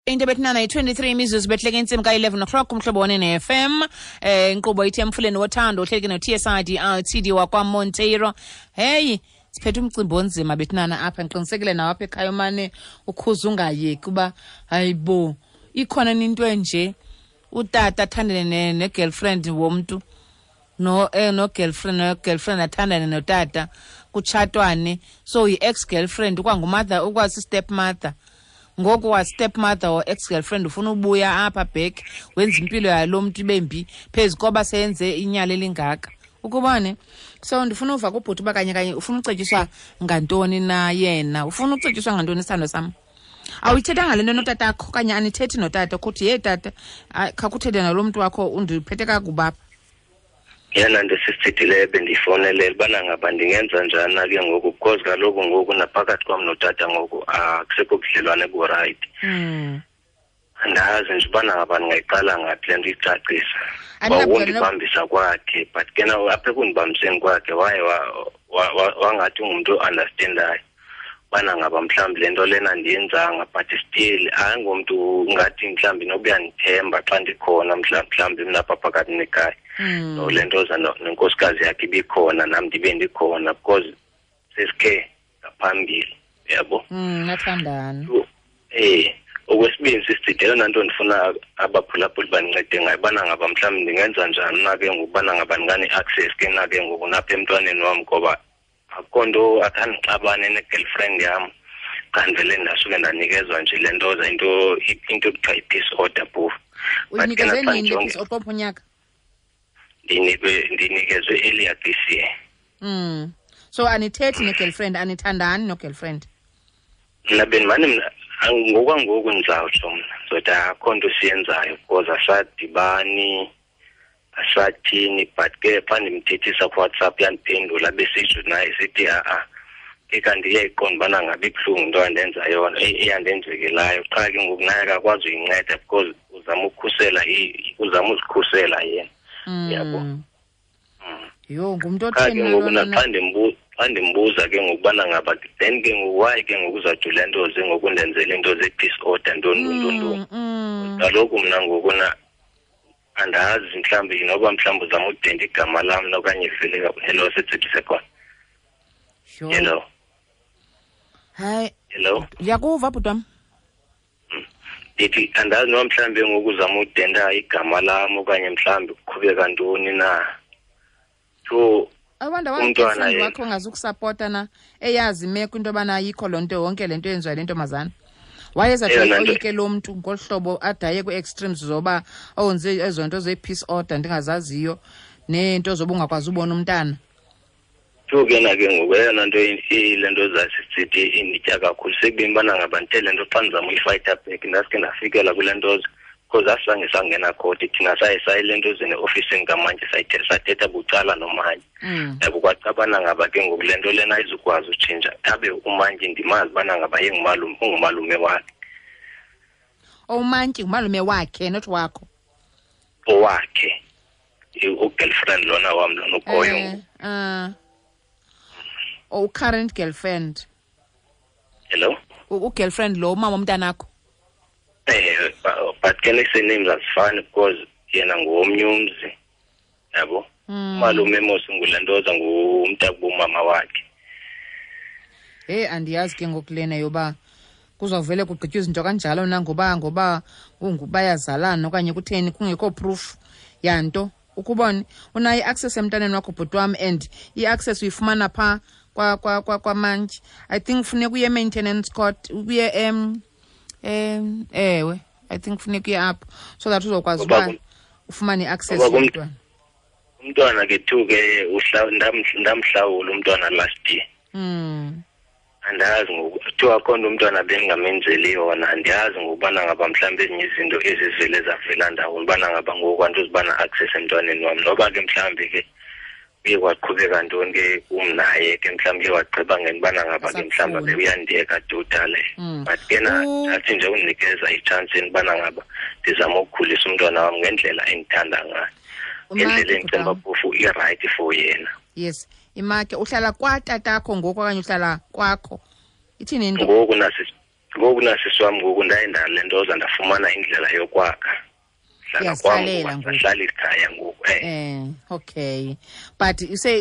Into ebethinana yi-23 imizuzu behleke intsimbi ka-11 o'clock kumhlobo one ne-FM. Inkqubo ithi Emfuleni Wothando, uhleleke no-TSID LTD wakwaMonteiro. Heyi, siphethe umcimbi onzima bethinana apha. Ndiqinisekile nawo apha ekhaya umane ukhuza ungayeki uba hayibo, ikhona into enje, utata athandane ne-girlfriend womntu, no no-girlfriend, no-girlfriend athandane notata, kutshatwane. So yi-ex-girlfriend ukwangumother, ukwasi-step mother ngoku, wa-step mother or ex-girlfriend ufuna ubuya apha back, wenza impilo yalo mntu ibe mbi phezu koba seyenze inyala elingaka, ukubone. So ndifuna uva kubhuti uba kanye kanye ufuna ucetyiswa ngantoni na yena, ufuna ucetyiswa ngantoni, isithando sam. Awuyithethanga le nto notatakho okanye anithethi notata kuthi, "Ye tata, khakuthethe nalo mntu wakho, undiphethe kakubi apha"? Yena nto sisithethileyo bendiyifowunelela ubana ngaba ndingenza njani na ke ngoku, because kaloku ngoku naphakathi kwam notata ngoku akusekho budlelwane burayithi. Andazi nje ubana ngaba ndingayiqala ngaphi le nto iyicacisa. Wawundibambisa kwakhe, but ke na apha ekundibambiseni kwakhe waye wangathi ungumntu o-understandayo ubana ngaba mhlawumbi le nto lena ndiyenzanga, but still ayingomntu ngathi mhlawumbi noba uyandithemba xa ndikhona mhlawumbi mna apha phakathi nekhaya. No le nto za nenkosikazi yakhe ibikhona, nam ndibe ndikhona, because sesikhe ngaphambili, yabo. Nathandana. Okwesibini, sisithide, eyona nto ndifuna abaphulaphuli bandincede ngayo, ubana ngaba mhlawumbi ndingenza njani na ke ngoku ubana ngaba ndingane-access ke na ke ngoku napha emntwaneni wam, ngoba akukho nto, akhandixabane ne-girlfriend yam, xa ndivele ndasuke ndanikezwa nje le nto za into ekuthiwa yi-peace order phofu. Uyinikezwe nini le peace order, unyaka? Ndinikezwe earlier this year. So anithethi ne-girlfriend, anithandani no-girlfriend? Mna bendimane mna ngokwangoku ndizawutsho mna ndizothi akho nto siyenzayo, because asadibani, asathini, but ke xa ndimthethisa kuWhatsApp uyandiphendula, besitsho naye sithi a-a ke kanti iyayiqonda ubana ngabe ibuhlungu into andenza yona, eyandenzekelayo. Qha ke ngoku naye akakwazi uyinceda because uzama ukukhusela, uzama uzikhusela yena, yabo. Yho, ngumntu Qha ke otheni ngoku lona? Naxa xa ndimbuza ke ngokubana ngaba then ke ngoku why ke ngoku uzawuthi le nto ze ngoku ndenzele into ze-peace order, ntoni ntoni ntoni. Kaloku mna ngoku na andazi mhlawumbi noba mhlawumbi uzama udenda igama lam okanye vele. Hello, setsebise khona. Yho. Hello? Hayi. Hello? Ndiyakuva, bhuti wam. Ndithi andazi noba mhlawumbi ngoku uzama udenda igama lam okanye mhlawumbi kuqhubeka ntoni na, so I wonder why umntwana girlfriend yena. wakho ongazukusapota na, eyazi imeko into yobana ayikho loo nto, yonke le nto yenziwa le ntombazana, wayeza Eyona nto- oyike lo mntu ngolu hlobo adaye kwi-extremes zoba owenze ezo nto zee-peace order ndingazaziyo neento zoba ungakwazi ubona umntana. So ke na ke ngoku eyona nto ile nto zasisithi inditya kakhulu sekubeni ubana ngaba ndithe le nto xa ndizama uyifayitha back, ndaske ndafikela kule nto, because asizange sangena khoti thina, saye saye le nto zene ofisini kamantyi, sathetha bucala nomantyi. Yabo, kwacabana ngaba ke ngoku le nto lena ayizukwazi utshintsha, abe umantyi ndimazi ubana ngaba yengumalume, ungumalume wakhe. Umantyi ngumalume wakhe, not wakho? Owakhe, u-girlfriend lona wam lona ukhoyo ngoku. Oh, current girlfriend? Hello? U-girlfriend lo umama womntanakho? But ke nee-surnames azifani because yena ngowomnye umzi, yabo. Umalume mos ngulantoza, ngumntakubomama wakhe. Heyi, andiyazi ke ngoku lena yoba kuzawuvele kugqitywa izinto kanjalo na, ngoba bayazalana okanye kutheni, kungekho proof yanto. Ukubone unayo i-access emntaneni wakho, bhuti wam, and i-access uyifumana phaa kwamantyi. I think funeka uye e-maintenance court, uye ewe, I think funeka uye apho so that uzokwazi Ngoba uba ufumane i-access ngoba yomntwana. Umntwana ke too ke ndamhlawula umntwana last year. Andazi ngoku kuthiwa akho nto umntwana bendingamenzeli yona. Andiyazi ngokubana ngaba mhlawumbi ezinye izinto ezivele zavela ndawoni, ubana ngaba ngoku andizubana access emntwaneni wam, noba ke mhlawumbi ke kuye kwaqhubeka ntoni ke kum naye ke, mhlawumbi uye wagqiba ngentobana ngaba ke mhlawumbi Asakufuni. abe uyandiyeka totally. But ke na ndathi nje undinikeza itshansi ubana ngaba ndizama ukukhulisa umntwana wam ngendlela endithanda ngayo, ngendlela Umake, endicinga bhuti wam. phofu irayithi for yena. Yes, imake, uhlala kwatatakho ngoku okanye uhlala kwakho? Ithini into? Ngoku Ngoku nasisi wam ngoku ndaye ndale nto ndafumana indlela yokwakha. Hlala kwam ngoku, ikhaya ngoku. Okay. But ise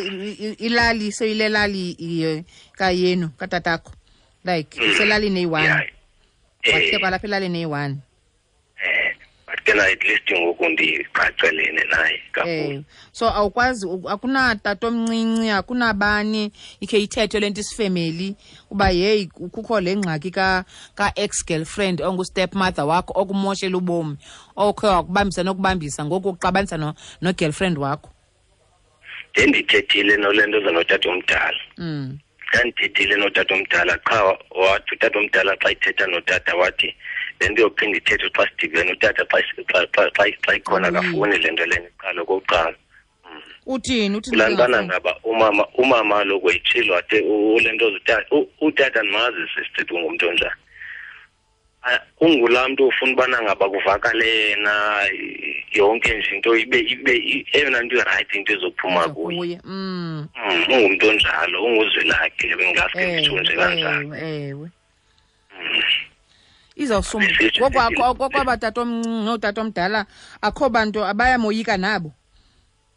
ilali seyilelali kayenu katatakho. Like iselali neyi-1. Wahle kwalapha elali neyi-1. But ke at least ngoku ndiqaqelene naye kakhulu. So awukwazi, akunatata omncinci, akunabani ikhe ithethe le nto isifemeli uba yeyi kukho le ngxaki ka-ex girlfriend ongu-step mother wakho okumoshela ubomi, okhe wakubambisa nokubambisa ngoku uxabanisa no-girlfriend wakho. Ndendithethile nole nto zanotata omdala. Ndandithethile notata omdala qha wathi utata omdala xa ithetha notata wathi le nto yophinda ithethe xa sidibene utata xa ikhona akafuni le nto lena iqala okokuqala. Uthini kulaa ntwana ngaba umama kaloku wayitshilo wathi ule nto utata ndimazi sisithi ungumntu onjani. Ungulaa mntu ufuna ubana ngaba kuvakale yena yonke nje into ibe eyona nto irayithi into ezophuma kuye. Ungumntu onjalo, unguzwelakhe bengaske nditsho nje kanjalo. Ewe. Izawusumba ngokwaba tata omncinci nootata omdala akho bantu abayamoyika nabo.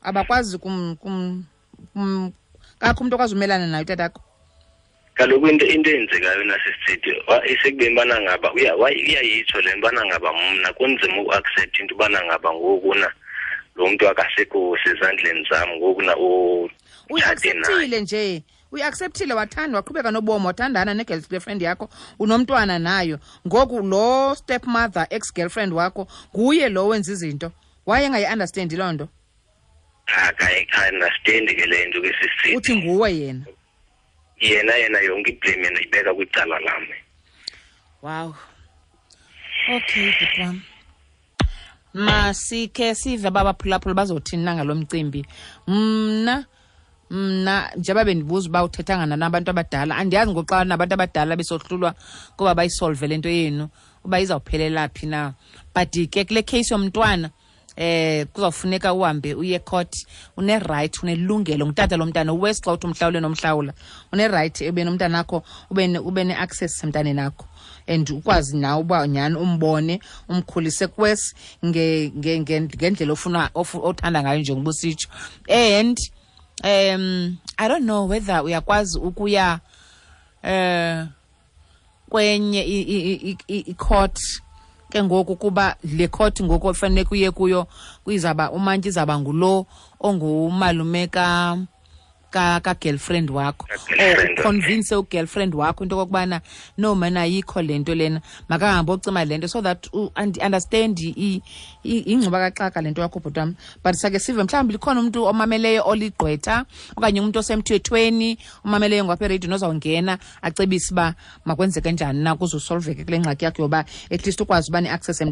Abakwazi kakho umntu okwazi umelana naye utatakho. Kaloku into eyenzekayo nasisithi isekubeni bana ngaba uyayitsho le nto bana ngaba mna kunzima uku-accept into ubana ngaba ngoku na lo mntu akasekho sezandleni zam ngoku na uyi-acceptile nje. Uyi-acceptile, wathanda, waqhubeka nobomi, wathandana ne-girlfriend yakho, unomntwana nayo. Ngoku lo stepmother ex-girlfriend wakho nguye lo wenza izinto. Wayengayi-understandi loo nto? Akayi-understandi ke le nto ke sisithi. Uthi nguwe yena? Yena yonke iblame yena ibeka kwicala lam. Wow. Okay, bhuti wam. Masikhe sive abaphulaphula bazothini na ngalo mcimbi. Mna njengoba bendibuza uba uthethanga nabantu abadala, andiyazi ngoxa nabantu abadala besohlulwa kuba bayisolve le nto yenu uba izawuphelela phi na. But ke kule case yomntwana kuzawufuneka uhambe uye court. Une-right, unelungelo ngutata lo mntana uwesi xa uthi umhlawule nomhlawula, une-right ube nomntana akho, ube ne-access emntaneni akho and ukwazi nawe uba nyhani umbone umkhulise kwesi ngendlela ofuna othanda ngayo njengoba usitsho. And I don't know whether uyakwazi ukuya kwenye i-court ke ngoku, kuba le court ngoku ofanele kuye kuyo kuyizaba umantyi izaba ngulo ongumalume ka girlfriend wakho, or convince u-girlfriend wakho into okokubana no man ayikho le nto lena, makahambe ocima le nto so that understand ingxuba kaxaka le nto yakho bhuti wam. But sake sive mhlawumbi likhona umntu omameleyo oligqwetha okanye umntu osemthethweni omameleyo ngapha ereyidini ozawungena acebise uba makwenzeke njani na kuze usolveke kule ngxaki yakho yoba at least ukwazi uba ne-access.